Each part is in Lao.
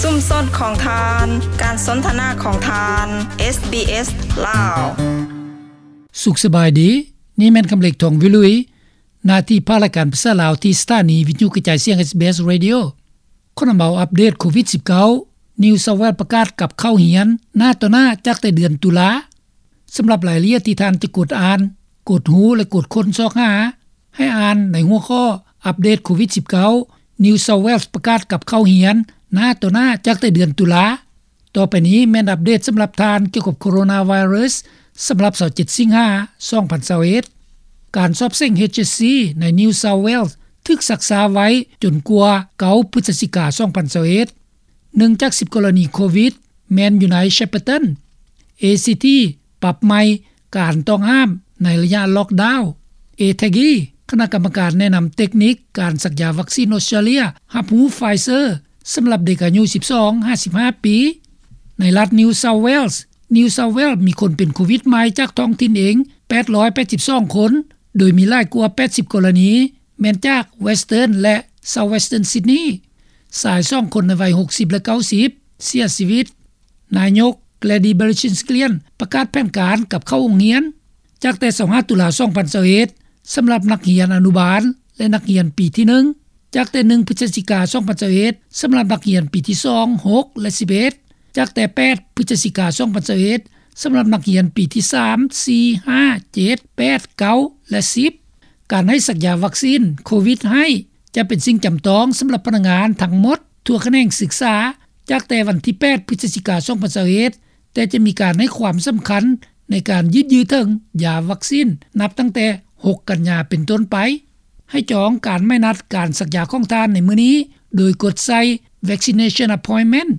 ຊຸມຊົນຂອງທ່ານ, ການສົນທະນາຂອງທ່ານ, ເອສບີເອສ ລາວ. ສຸກສະບາຍດີ, ນີ້ແມ່ນຄຳເລັກ ທອງວິລຸຍ, ໜ້າທີ່ພາກລາຍການພາສາລາວ ທີ່ສະຖານີວິທະຍຸກະຈາຍສຽງ ເອສບີເອສ Radio. ຂໍນຳເອົາອັບເດດໂຄວິດສິບເກົ້າ, New South Wales ປະກາດກັບເຂົ້າຮຽນໜ້າຕໍ່ໜ້າຈາກແຕ່ເດືອນຕຸລາ. ສຳລັບລາຍລະອຽດທີ່ທ່ານຈະກົດອ່ານ, ກົດຮູ້ ແລະ ກົດຄົ້ນຊອກຫາ, ໃຫ້ອ່ານໃນຫົວຂໍ້ ອັບເດດໂຄວິດສິບເກົ້າ, New South Wales ປະກາດກັບເຂົ້າຮຽນໜ້າຕໍ່ໜ້າຈາກແຕ່ເດືອນຕຸລາ. ຕໍ່ໄປນີ້ແມ່ນອັບເດດສຳລັບທ່ານກ່ຽວກັບໂຄໂຣນາໄວຣັສສຳລັບຊາວເຈັດສິງຫາ ສອງພັນຊາວເອັດ. ການສອບເສັງ ເອດເອັດຊີ ໃນ New South Wales ຖືກຊັກຊ້າໄວ້ຈົນກວ່າ ເກົ້າ ພຶສຈິກາ ສອງພັນຊາວເອັດ. ໜຶ່ງຈາກສິບກໍລະນີໂຄວິດແມ່ນຢູ່ໃນ Shepparton. ເອຊີທີ ປັບໃໝ່ການຕ້ອງຫ້າມໃນໄລຍະລັອກດາວ. ເອແທັກອີ ຄະນະກຳມະການແນະນຳເຕັກນິກການສັກຢາວັກຊີນອົດສະຕຣາເລຍ ຮັບຮູ້ Pfizer ສຳລັບເດັກອາຍຸສິບສອງຫາສິບຫ້າປີ. ໃນລັດ New South Wales, New South Wales ມີຄົນເປັນໂຄວິດໃໝ່ຈາກທ້ອງຖິ່ນເອງ ແປດຮ້ອຍແປດສິບສອງຄົນ, ໂດຍມີຫຼາຍກວ່າ ແປດສິບກໍລະນີ ແມ່ນຈາກ Western ແລະ South Western Sydney. ຊາຍສອງຄົນໃນໄວ ຫົກສິບ ແລະ ເກົ້າສິບ ເສຍຊີວິດ. ນາຍົກ Gladys Berejiklian ປະກາດແຜນການກັບເຂົ້າໂຮງຮຽນ ຈາກແຕ່ ຊາວຫ້າ ຕຸລາ ສອງພັນຊາວເອັດ ສຳລັບນັກຮຽນອະນຸບານ ແລະ ນັກຮຽນປີທີໜຶ່ງ, ຈາກແຕ່ ໜຶ່ງ ພຶສຈິກາ ສອງພັນຊາວເອັດ ສຳລັບນັກຮຽນປີທີສອງ, ຫົກ ແລະ ສິບເອັດ, ຈາກແຕ່ ແປດ ພຶສຈິກາ ສອງພັນຊາວເອັດ ສຳລັບນັກຮຽນປີທີສາມ, ສີ່, ຫ້າ, ເຈັດ, ແປດ, ເກົ້າ ແລະ ສິບ. ການໃຫ້ສັກຢາວັກຊີນໂຄວິດໃຫ້ ຈະເປັນສິ່ງຈຳຕ້ອງສຳລັບພະນັກງານທັງໝົດທົ່ວຂະແໜງສຶກສາ ຈາກແຕ່ວັນທີ ແປດ ພຶສຈິກາ ສອງພັນຊາວເອັດ, ແຕ່ຈະມີການໃຫ້ຄວາມສຳຄັນໃນການຍືດເຖິງຢາວັກຊີນ ນັບຕັ້ງແຕ່ ຫົກ ກັນຍາ ເປັນຕົ້ນໄປ. ໃຫ້ຈອງການໝາຍນັດການສັກຢາຂອງທ່ານໃນມື້ນີ້ ໂດຍກົດໃສ່ Vaccination Appointment.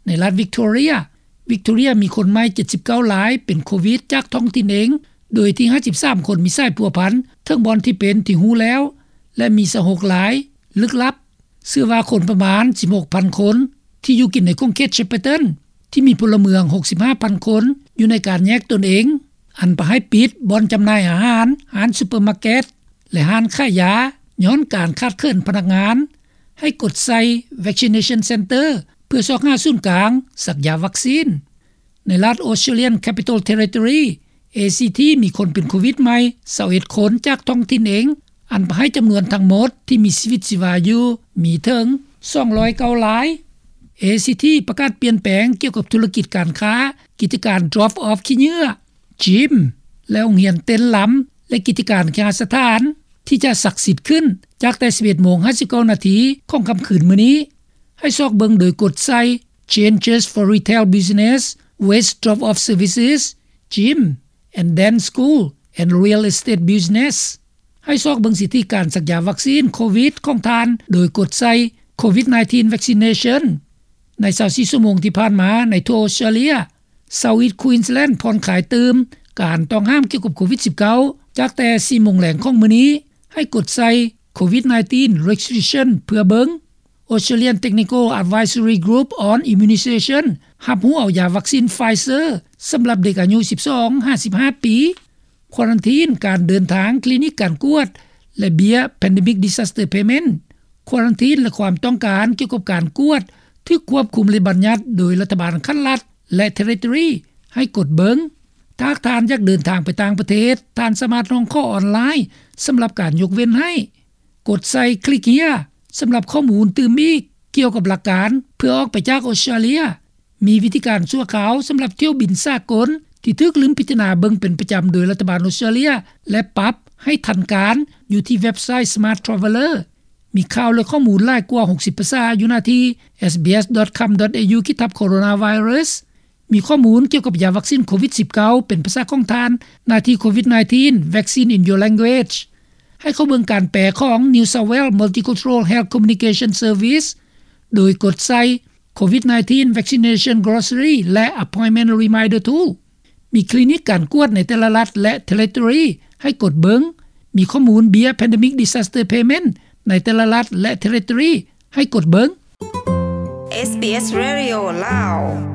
ໃນລັດ Victoria, Victoria ມີຄົນໃໝ່ ເຈັດສິບເກົ້າລາຍເປັນໂຄວິດຈາກທ້ອງຖິ່ນເອງ, ໂດຍທີ່ ຫ້າສິບສາມຄົນມີສາຍພົວພັນ ເຖິງບ່ອນທີ່ເປັນທີ່ຮູ້ແລ້ວ ແລະ ມີ ຊາວຫົກລາຍ ລຶກລັບ. ເຊື່ອວ່າຄົນປະມານ ສິບຫົກພັນຄົນ ທີ່ຢູ່ກິນໃນຂົງເຂດ Shepparton ທີ່ມີພົນລະເມືອງ ຫົກສິບຫ້າພັນຄົນ ຢູ່ໃນການແຍກຕົນເອງ, ອັນປະໃຫ້ປິດບ່ອນຈຳໜ່າຍອາຫານ, ຮ້ານຊຸບເປີມາເກັດ ແລະ ຮ້ານຂາຍຢາ ຍ້ອນການຂາດເຂີນພະນັກງານ, ໃຫ້ກົດໃສ່ Vaccination Center ເພື່ອຊອກຫາສູນກາງສັກຢາວັກຊີນ. ໃນລັດ Australian Capital Territory, ACT ມີຄົນເປັນໂຄວິດໃໝ່ ຊາວເອັດຄົນຈາກທ້ອງຖິ່ນເອງ, ອັນປະໃຫ້ຈຳນວນທັງໝົດທີ່ມີຊີວິດຊີວາຢູ່ມີເຖິງ ສອງຮ້ອຍເກົ້າລາຍ. ACT ປະກາດປ່ຽນແປງກ່ຽວກັບທຸລະກິດການຄ້າ, ກິດຈະການ Drop Off ຂີ້ເຫຍື້ອ, Gym ແລະ ໂຮງຮຽນເຕັ້ນລຳ ແລະ ກິດຈະການເຄຫະສະຖານ ທີ່ຈະສັກສິດຂຶ້ນ ຈາກແຕ່ ສິບເອັດໂມງ ຫ້າສິບເກົ້ານາທີ ຂອງຄ່ຳຄືນມື້ນີ້. ໃຫ້ຊອກເບິ່ງໂດຍກົດໃສ່ Changes for Retail Business, Waste Drop Off Services, Gym and Dance School and Real Estate Business. ໃຫ້ຊອກເບິ່ງສິດທິການສັກຢາວັກຊີນໂຄວິດຂອງທ່ານ ໂດຍກົດໃສ່ Covid nineteen Vaccination. ໃນຊາວສີ່ຊົ່ວໂມງທີ່ຜ່ານມາ, ໃນທົ່ວອອສເຕຣເລຍ, South East Queensland ຜ່ອນຄາຍຕື່ມການຕ້ອງຫ້າມກ່ຽວກັບໂຄວິດສິບເກົ້າ ຈາກແຕ່ ສີ່ໂມງແລງຂອງມື້ນີ້. ໃຫ້ກົດໃສ່ Covid nineteen Restriction ເພື່ອເບິ່ງ. Australian Technical Advisory Group on Immunisation ຮັບຮູ້ເອົາຢາວັກຊີນ Pfizer ສຳລັບເດັກອາຍຸ ສິບສອງຫາສິບຫ້າປີ. ຄວາຣັນທີນການເດີນທາງ, ຄລີນິກການກວດ ແລະ ເບ້ຍ Pandemic Disaster Payment. ຄວາຣັນທີນ ແລະ ຄວາມຕ້ອງການກ່ຽວກັບການກວດ ຖືກຄວບຄຸມ ແລະ ບັນຍັດໂດຍລັດຖະບານຂັ້ນລັດ ແລະ Territory ໃຫ້ກົດເບິ່ງ. ຖ້າຫາກທ່ານຢາກເດີນທາງໄປຕ່າງປະເທດ, ທ່ານສາມາດຮ້ອງຂໍອອນລາຍສຳລັບການຍົກເວັ້ນໃຫ້. ກົດໃສ່ Click Here ສຳລັບຂໍ້ມູນຕື່ມອີກກ່ຽວກັບຫຼັກການເພື່ອອອກໄປຈາກອອສເຕຣເລຍ. ມີວິທີການຊົ່ວຄາວສຳລັບຖ້ຽວບິນສາກົນທີ່ຖືກລືມພິຈາລະນາເບິ່ງເປັນປະຈຳໂດຍລັດຖະບານອອສເຕຣເລຍ ແລະ ປັບໃຫ້ທັນການຢູ່ທີ່ເວັບໄຊ Smart Traveller. ມີຂ່າວ ແລະ ຂໍ້ມູນຫຼາຍກວ່າ ຫົກສິບ ພາສາຢູ່ໜ້າທີ່ sbs.com.au ຂີດທັບ coronavirus. ມີຂໍ້ມູນກ່ຽວກັບຢາວັກຊີນໂຄວິດສິບເກົ້າເປັນພາສາຂອງທ່ານ ໜ້າທີ່ Covid nineteen Vaccine in Your Language. ໃຫ້ເຂົ້າເບິ່ງການແປຂອງ New South Wales Multicultural Health Communication Service ໂດຍກົດໃສ່ Covid nineteen Vaccination Glossary ແລະ Appointment Reminder Tool. ມີຄລີນິກການກວດໃນແຕ່ລະລັດ ແລະ Territory ໃຫ້ກົດເບິ່ງ. ມີຂໍ້ມູນເບ້ຍ Pandemic Disaster Payment ໃນແຕ່ລະລັດ ແລະ Territory ໃຫ້ກົດເບິ່ງ. SBS Radio ລາວ.